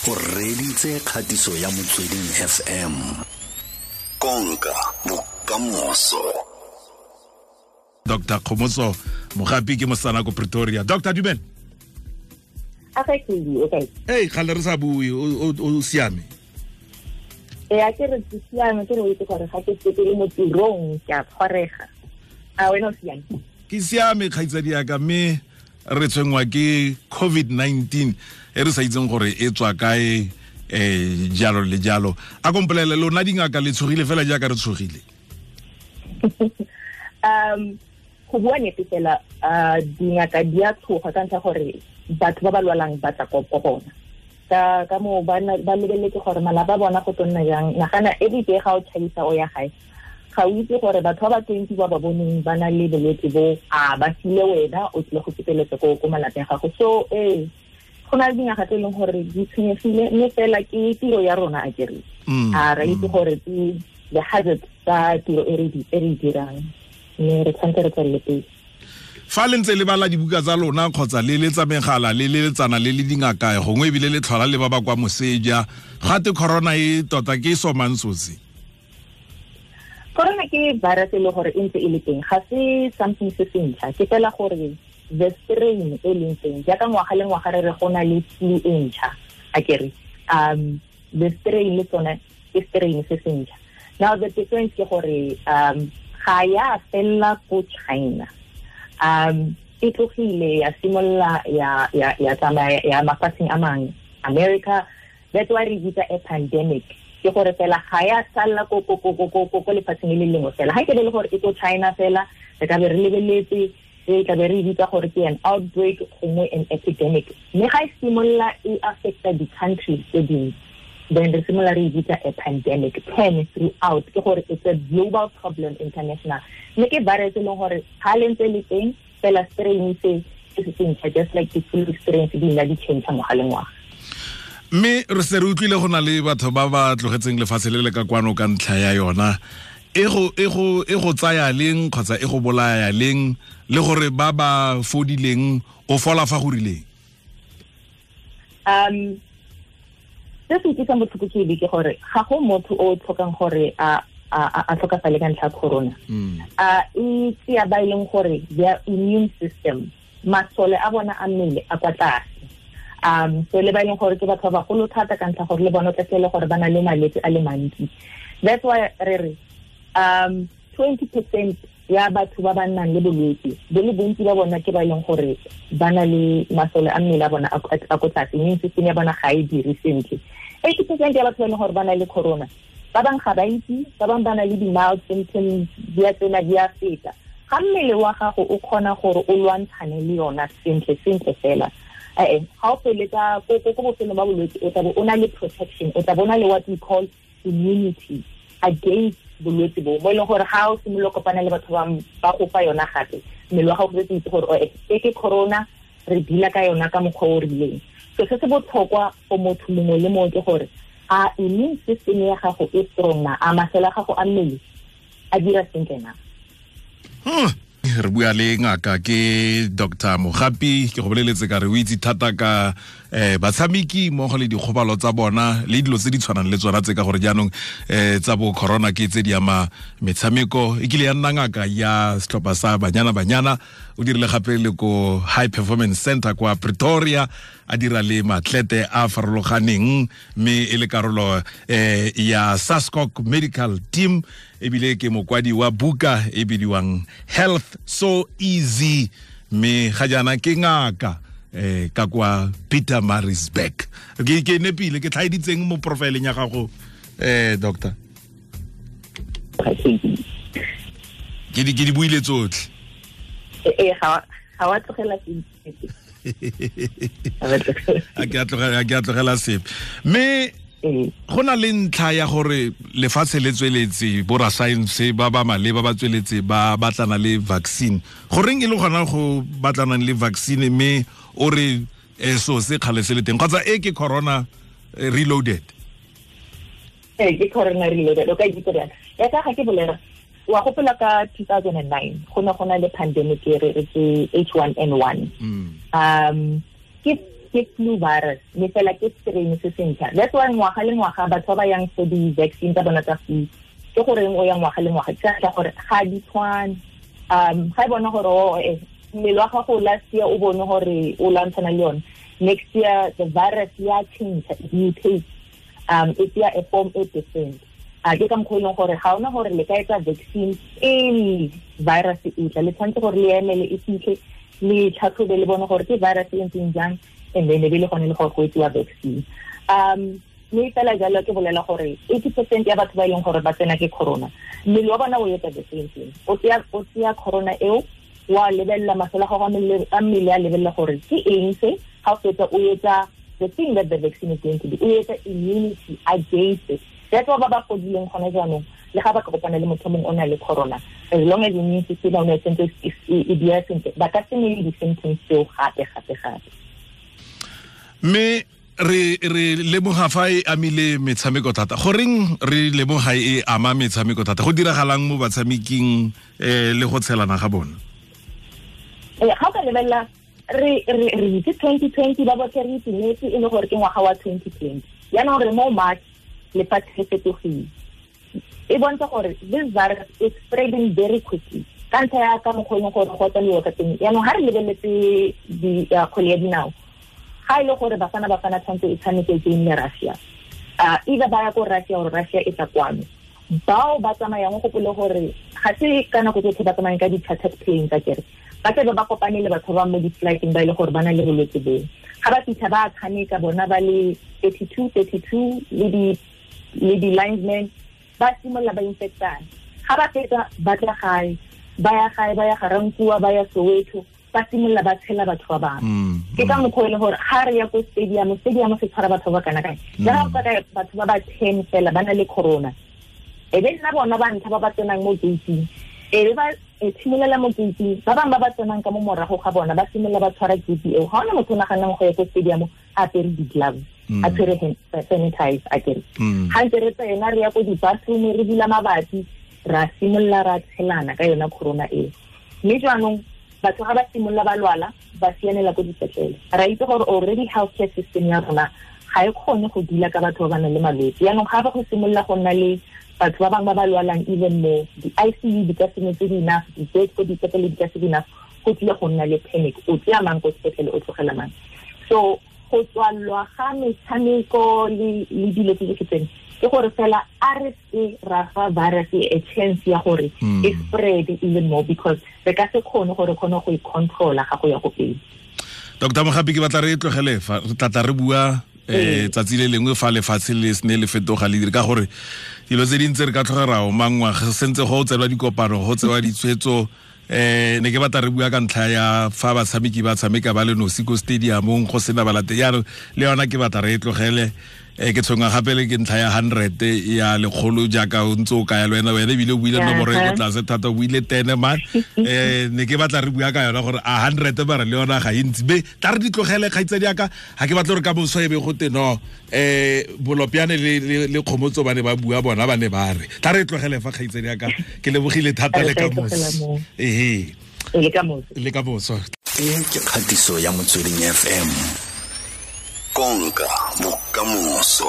O reditse kgatiso ya Motsweding FM. Konka bokamoso. Dr. Kgomotso Mogapi ke mosana ko Pretoria. Dr. Dumela. Okay. Hey, kgale re sa bue, o siame? Ee, a ke re ke siame, ke re o itse gore ga ke sepele mo tirong ke a tshwarega. A wena o siame? Ke siame, kgaitsadi yaka, mme re tshwenngwa ke COVID-19 e re sa itseng gore e tswa kae, jalo le jalo. A kompolele, lona dingaka le tshogile fela jaaka re tshogile? Go bua nnete fela, dingaka di a tshoga ka ntlha gore batho ba ba lwalang ba tla ko bona. Ka moo ba lebeletse gore malapa a bona go tlo nna jang. Nagana every day ga o tšhaisa o ya gae, ga o itse gore batho ba ba 20 ba ba boneng ba na le bolwetse bo, a ba file wena o tlile go feteletsa ko malapeng a gago. So go na le dingaka tse e leng gore di tshwenyegile, mme fela ke tiro ya rona a kere. A re itse gore ke the hazard tsa tiro e re dirang, mme re tshwanetse re tswelele pele. Fa le ntse le bala dibuka tsa lona kgotsa le letsa megala le leletsana le le dingaka, gongwe ebile le tlhola le ba ba kwa moseja, gate corona e tota ke somang sotse? Corona ke virus e le gore e ntse e le teng, ga se something se se ntšha, ke fela gore the strain e leng teng jaaka ngwaga le ngwaga re re go na le flu e ntšha, a kere the strain le tsone ke strain se se ntšha. Now the difference ke gore ga ya fella ko China, e tlogile ya simolola ya tsamaya ya mafatsheng a mangwe, America. That's why re bitsa a pandemic, ke gore fela ga ya salla ko lefatsheng le lengwe fela. Ga ke le gore e ko China fela, re ka be re lebeletse, re tla be re bitsa gore ke an outbreak gongwe an epidemic. Mme ga e simolola e affecta di-countries tse dingwe, then re simolola re bitsa a pandemic. Pan throughout, ke gore it's a global problem, international. Mme ke virus e leng gore ga le ntse le teng fela, strain se se se ntšha, just like the flu strains di nna di change ngwaga le ngwaga. Mme re se re utlwile go na le batho ba ba tlogetseng lefatshe le le ka kwano ka ntlha ya yona. E go tsaya leng kgotsa e go bolaya leng, le gore ba ba fodileng o fola fa go rileng? Se se utlwisang botlhoko ke ke gore ga go motho o tlhokang gore a tlhokafale ka ntlha ya corona. E tseya ba e leng gore their immune system, masole a bona a mmele a kwa tlase. So le ba e leng gore ke batho ba bagolo thata ka ntlha gore le bona o tla fitlhela gore ba na le malwetse a le mantsi. That's why re re 20% ya batho ba ba nnang le bolwetse, bo le bontsi ba bona ke ba e leng gore ba na le masole a mmele a bona a ko tlase, immune system ya bona ga e dire sentle. 80% ya batho ba e leng gore ba na le corona, ba bangwe ga ba itse, ba bangwe ba na le di-mild symptoms, di a tsena di a feta. Ga mmele wa gago o kgona gore o lwantshane le yona sentle sentle fela, ga o feletsa ko bofelong ba bolwetse, o tla bo o na le protection, o tla bo o na le what we call immunity against bolwetse bo, mo e leng gore ga o simolola kopana le batho ba go fa yona gape, mmele wa gago o setse itse gore e ke corona, re deala ka yona ka mokgwa o rileng. So se se botlhokwa for motho mongwe le mongwe ke gore a immune system ya gago e strong na, a masole a gago a mmele a dira sentle na. Re bua le ngaka ke Dr. Mogapi, ke go boleletse ka re o itse thata ka batshameki mmogo le dikgobalo tsa bona le dilo tse di tshwanang le tsona tse, ka gore jaanong tsa bo corona ke tse di ama metshameko. E kile ya nna ngaka ya setlhopha sa Banyana Banyana, o dirile gape le ko High Performance Center kwa Pretoria, a dira le matlete a farologaneng, mme e le karolo ya SASCOC Medical Team, ebile ke mokwadi wa buka e bidiwang Health So Easy, mme ga jaana ke ngaka ka kwa Pietermaritzburg. Ke nepile, ke tlhaeditseng mo profileng ya gago, doctor? Ke di buile tsotlhe. Ga wa tlogela sepe. A ke a tlogela sepe. Mme go na le ntlha ya gore lefatshe le tsweletse, borasaense ba ba maleba ba tsweletse ba batlana le vaccine. Goreng e le gona go batlanang le vaccine, mme o re so se kgale se le teng, kgotsa e ke corona reloaded? Ke corona reloaded, o ka itse jang? Ya ka ga ke bolela, wa gopola ka 2009 go ne go na le pandemic e re ke H1N1. Ke Ke flu virus, mme fela ke strain se sentšha. That's why ngwaga le ngwaga batho ba ba yang for di-vaccine tsa bona tsa flu, ke goreng o ya ngwaga le ngwaga, ke ka gore ga di tshwane. Ga e bona gore mmele wa gago last year o bone gore o lwantshana le yone, next year the virus ya change, it mutates, e tsaya a form e different. Ke ka mokgwa e leng gore ga ona gore le ka etsa vaccine pele virus e tla, le tshwanetse gore le emele e fitlhe, le tlhatlhobe le bone gore ke virus e ntseng jang, and then e be le gone le gore go etsiwa vaccine. Mme fela jalo ke bolela gore 80% ya batho ba e leng gore ba tsena ke corona, mmele wa bona o etsa the same thing. O tseya corona eo, wa lebelela masole a gago a mmele a lebelela gore ke eng se, ga o fetsa o etsa the thing that the vaccine is going to do, o etsa immunity against it. That's why ba ba fodileng gone jaanong, le ga ba ka kopana le motho mongwe o na le corona, as long as immune system ya bona e sentse e dira sentle, ba ka se nne le di-symptoms tseo gape gape gape. Mme re lemoga fa e amile metshameko thata. Goreng re lemoga e ama metshameko thata? Go diragalang mo batshameking le go tshelana ga bona? Ga o ka lebelela re itse 2020 ba botlhe re itumetse e le gore ke ngwaga wa 2020. Jaanong re mo March, lefatshe le fetogile. E bontsha gore this virus is spreading very quickly. Ka ntlha ya ka mokgwa e leng gore go tsamaiwa ka teng. Jaanong ga re lebeletse kgwele ya dinao, ga e le gore Bafana Bafana tshwanetse e tshameke game le Russia, either ba ya ko Russia or Russia e tla kwano, bao ba tsamayang go gopole gore ga se ka nako tsotlhe ba tsamayang ka di-chartered plane tsa kere, ba tlabe ba kopane le batho ba mo di-flighteng ba e le gore ba na le bolwetse boo. Ga ba fitlha ba tshameka bona ba le 32 le di-linesmen, ba simolola ba infectana. Ga ba fetsa ba tla gae, ba ya gae, ba ya Garankuwa, ba ya Soweto, ba simolola ba tshela batho ba bangwe. Ke ka mokgwa e leng gore ga re ya ko stadium, stadium se tshwara batho ba kana kae. Le ga o ka batho ba ba 10 fela ba na le corona, e be nna bona ba ntlha ba ba tsenang mo gate-ing, e be ba tshimolela mo gate-ing, ba bangwe ba ba tsenang ka mo morago ga bona ba simolola ba tshwara gate eo. Ga ona motho o naganang go ya ko stadium a apere di-gloves, a tshwere hand sanitize a kere. Ga ntse re tsena re ya ko di-bathroom, re bula mabati, ra simolola ra tshelana ka yona corona eo. Mme jaanong batho ga ba simolola ba lwala, ba sianela ko dipetlele. Ra itse gore already healthcare system ya rona ga e kgone go dula ka batho ba ba nang le malwetse. Jaanong ga ba go simolola go nna le batho ba bangwe ba ba lwalang even more, di-ICU di ka se nne tse di enough, di-bed ko dipetlele di ka se di enough, go tlile go nna le panic. O tseya mang ko sepetlele, o tlogela mang. So go tswalwa ga metshameko le dilo tse di tseno, ke gore fela a re se ra fa virus a chance ya gore e spread even more, because re ka se kgone gore kgone go e controla ga go ya go pele. Dr. Mogapi, ke batla re tlogele fa, re tla re bua tsatsi le lengwe fa lefatshe le sene le fetoga le dire, ka gore dilo tse dintsi re ka tlhoga ra omangwa, sentse go tselwa dikopano, go tsewa ditshwetso. Ne ke batla re bua ka ntlha ya fa batshameki ba tshameka ba le nosi ko stadiumong go sena balate. Jaanong le yona ke batla re e tlogele. Ke tshwenngwa gape le ke ntlha ya 100 ya lekgolo jaaka o ntse o kaya le wena, wena ebile o buile nomoro e ko tlase thata, o buile 10 man. Ne ke batla re bua ka yona gore a 100 mara le yona ga e ntsi. Be tla re di tlogele kgaitsadi yaka, ga ke batla gore ka moso e be go te no Bolopiane le Kgomotso ba ne ba bua bona ba ne ba re. Tla re tlogele fa kgaitsadi yaka, ke lebogile thata le ka moso. Ehe. Le ka moso. E ke kgatiso ya Motsweding FM. Konka bokamoso.